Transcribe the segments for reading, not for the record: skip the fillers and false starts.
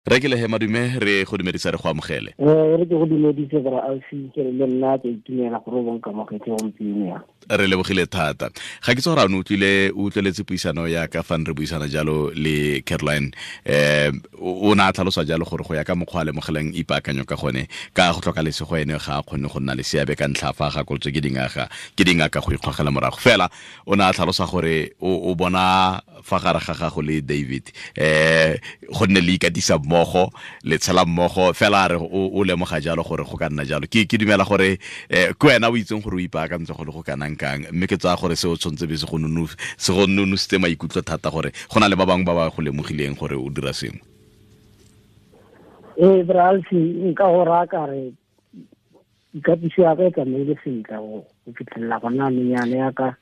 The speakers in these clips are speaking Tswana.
Re ke lehe madume, re go dumedisa, re go amogele. Re ke go dumedise, bra Alfi, ke re le nna ke itumela gore o bonkamogetse gompieno ya. Re lebogile thata. Ga ke tse gore a ne utlwile, o utlweletse puisano ya ka fa re buisana jalo le Caroline. O ne a tlhalosa jalo gore go ya ka mokgwa a lemogelang ipaakanyo ka gone, ka go tlhoka lesego ene ga a kgone go nna le seabe ka ntlha fa a gakolotswe ke dingaka go ikgogela morago. Fela o ne a tlhalosa gore o bona fa gare ga gago le David gonne le ikatisa mmogo, le tshela mmogo fela, a re o lemoga jalo gore go ka nna jalo. Ke dumela gore ke wena o itseng gore o ipaakantse go le go kanang kang, mme ke tsaya gore seo tshwanetse be se go nonositse maikutlo thata gore go na le ba bangwe ba ba go lemogileng gore o dira sengwe. Ee, bra Alfi, nka go raya ka re ikatiso ya ka e tsamaile sentle go fitlhelela gona anong yana. Yaka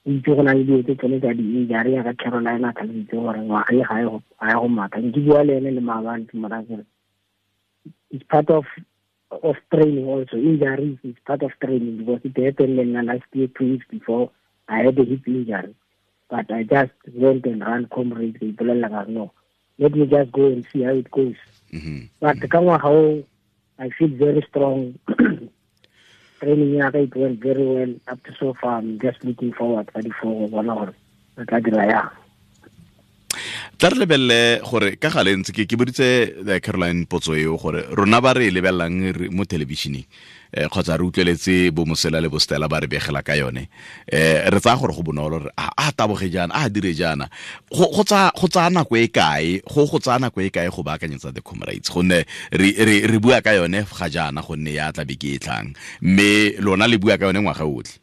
o itse, go na le dilo tse tsone tsa di-injury, yaka Caroline a tlhalositse gore ngwaga e ga e go matha. Nke bua le ene le maabane, ke mo raya kere it's part of training also. Injuries is part of training because it happened le nna last year, 2 weeks before I had a hip injury, but I just went and run Comrades. Ke ipolelela ka re, "No, let me just go and see how it goes." But ka ngwaga o I feel very strong. Training ya ka, it went very well up to so far. I'm just looking forward ka di-4 go bona gore re tla dira yang. Tla re lebelele gore ka gale ntse ke boditse Caroline potso eo gore rona ba re e lebelelang mo thelebišeneng kgotsa re utlweletse bo Mosela le bo Stella ba re begela ka yone, re tsaya gore go bonolo, re a taboge jaana, a dire jaana. Go tsaya nako e kae, go tsaya nako e kae go baakanyetsa the Comrades? Gonne re bua ka yone ga jaana gonne ya tla beke e tlang, mme lona le bua ka yone ngwaga otlhe.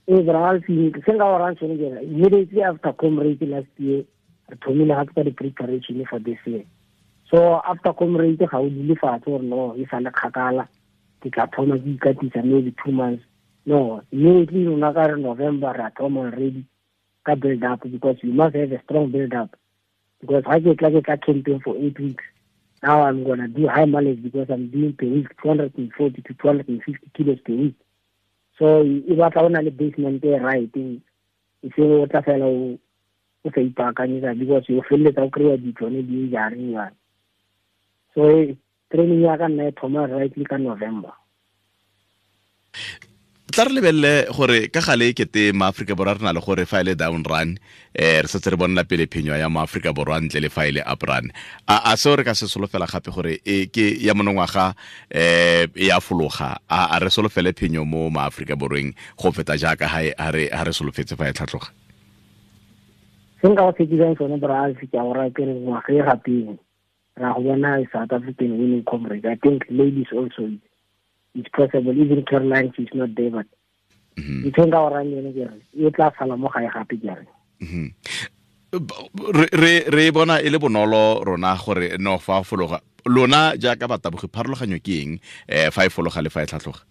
Ee, bra Alfi, se nka go rang sone ke re immediately after Comrade last year, re thomile gape ka di-preparation for this year. So after Comrade ga o dule fatshe gore no, e sa le kgakala, ke tla thoma ke ikatisa maybe 2 months. No, immediately rona ka re November re a thoma already ka build up, because you must have a strong build up, because ga ke tla camping for 8 weeks. Now I'm gonna do high mileage because I'm doing per week 240 to 250 kilos per week. So e batla o na le basement e right, e seng o tla fela o sa ipaakanyetsa, because o feleletsa o kry-a ditsone di-injury yana. So training ya ka nna e thoma rightly ka November. Tla re lebelele gore ka gale e kete maaforika Borwa re na le gore fa e le down run, re setse re bonela pele phenyo ya maaforika Borwa ntle le fa e le up run. A seo re ka se solofela gape gore e ke ya monongwaga e ya fologa? A re solofele phenyo mo maaforika Borweng go feta jaaka ha re solofetse fa e tlhatlhoga? Se nka go tshekisang sone, bra Alfi, ke a go raya kere ngwaga e gapeng ra go bona South African winning Comrade. I think ladies also, it's possible. Even Caroline, she's not there, but ntho e nka go rayang yone ke re e tla sala mo gae gape, ke re. Re e bona e le bonolo rona gore no fa fologa. Lona jaaka batabogi, pharologanyo ke eng fa e fologa le fa e tlhatlhoga?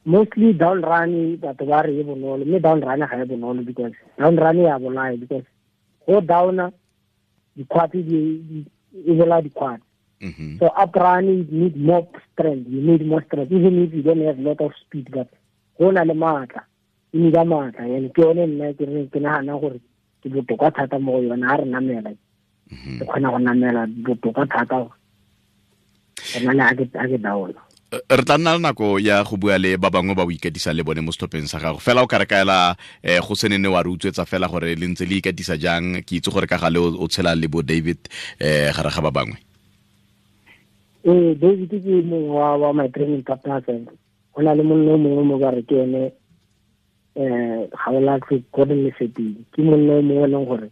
Mostly down run, batho ba re e bonolo, mme down run ga e bonolo, because down run ya bolaya, because go downa dikgwati e bolaya dikgwati. So up run, you need more strength, you need more strength even if you don't have a lot of speed, but go na le maatla, e need maatla, and ke yone nna ke re ke nagana gore ke botoka thata mo go yone. Ha re namela, ke kgona go namela botoka thata go na le ha ke downa. Re tla nna le nako ya go bua le ba bangwe ba o ikatisa le bone mo setlhopheng sa gago. Fela o ka re kaela go se nene wa re utswetsa fela gore le ntse le ikatisa jang. Ke itse gore ka gale o tshela le bo David gare ga ba bangwe. Ee, David ke mongwe wa my training partners. Go na le monna o mongwe mo ba re ke ene Gaolatlhe Gordon Lesetedi, ke monna o mongwe e leng gore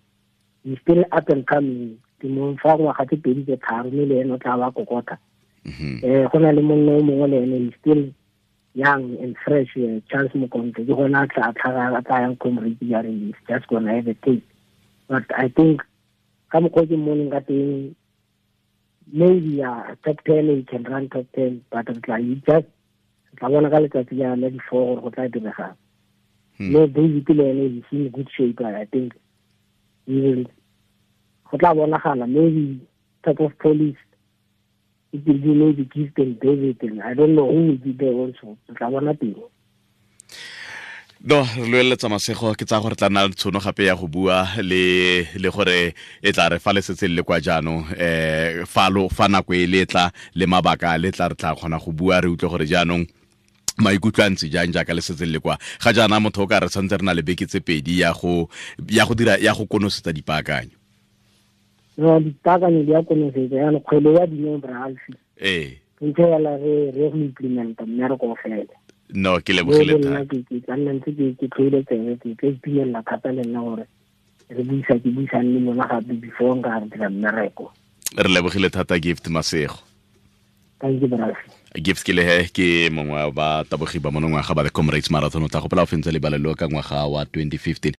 he still up and coming. Ke mo fa ngwaga tse 2 tse 3, mme le ene o tla ba kokota. Go na le monna o mongwe le ene, he still young and fresh, Charles Mokontle, ke gona a tla tlhaga, a tla yang Comrade jaanong. He's just gonna have a taste, but I think ka mokgwa o ke mmoneng ka teng, maybe top 10, he can run top 10, but re tla just re tla bona ka letsatsi la di-4 gore go tla diregang. Mme David le ene he's in good shape. I think he will, go tla bonagala maybe top of police, it will be maybe Gift and David, and I don't know who will be there also. Re tla bona teng. No, re loeletsa masego. Ke tsaya gore tla nna le tshono gape ya go bua le gore e tla re fa le setse le kwa jaanong, fa lo fa nako e le tla le mabaka le tla, re tla kgona go bua, re utlwe gore jaanong maikutlo a ntse jang jaaka le setse le kwa. Ga jaana motho o ka re santse re na le beke tse 2 ya go dira, ya go konosetsa dipaakanyo. No, dipaakanyo di ya konosetsa jaanong, kgwele ya dineo, Bralfi. Ntse yala re go implementa mmereko o fele. No, ke lebogile. Thata ke tla nna ntse ke tlhoile tsebe, ke tla itumelela thata le nna gore re buisa, ke buisang le lona gape before nka re dira mmereko. Re lebogile thata, Gift Masego. Thank you, Bralfi. Gift ke lehe ke mongwe wa batabogi ba monongwaga ba the Comrades Marathon. O tla gopola o fentse lebalelo ka ngwaga wa 2015.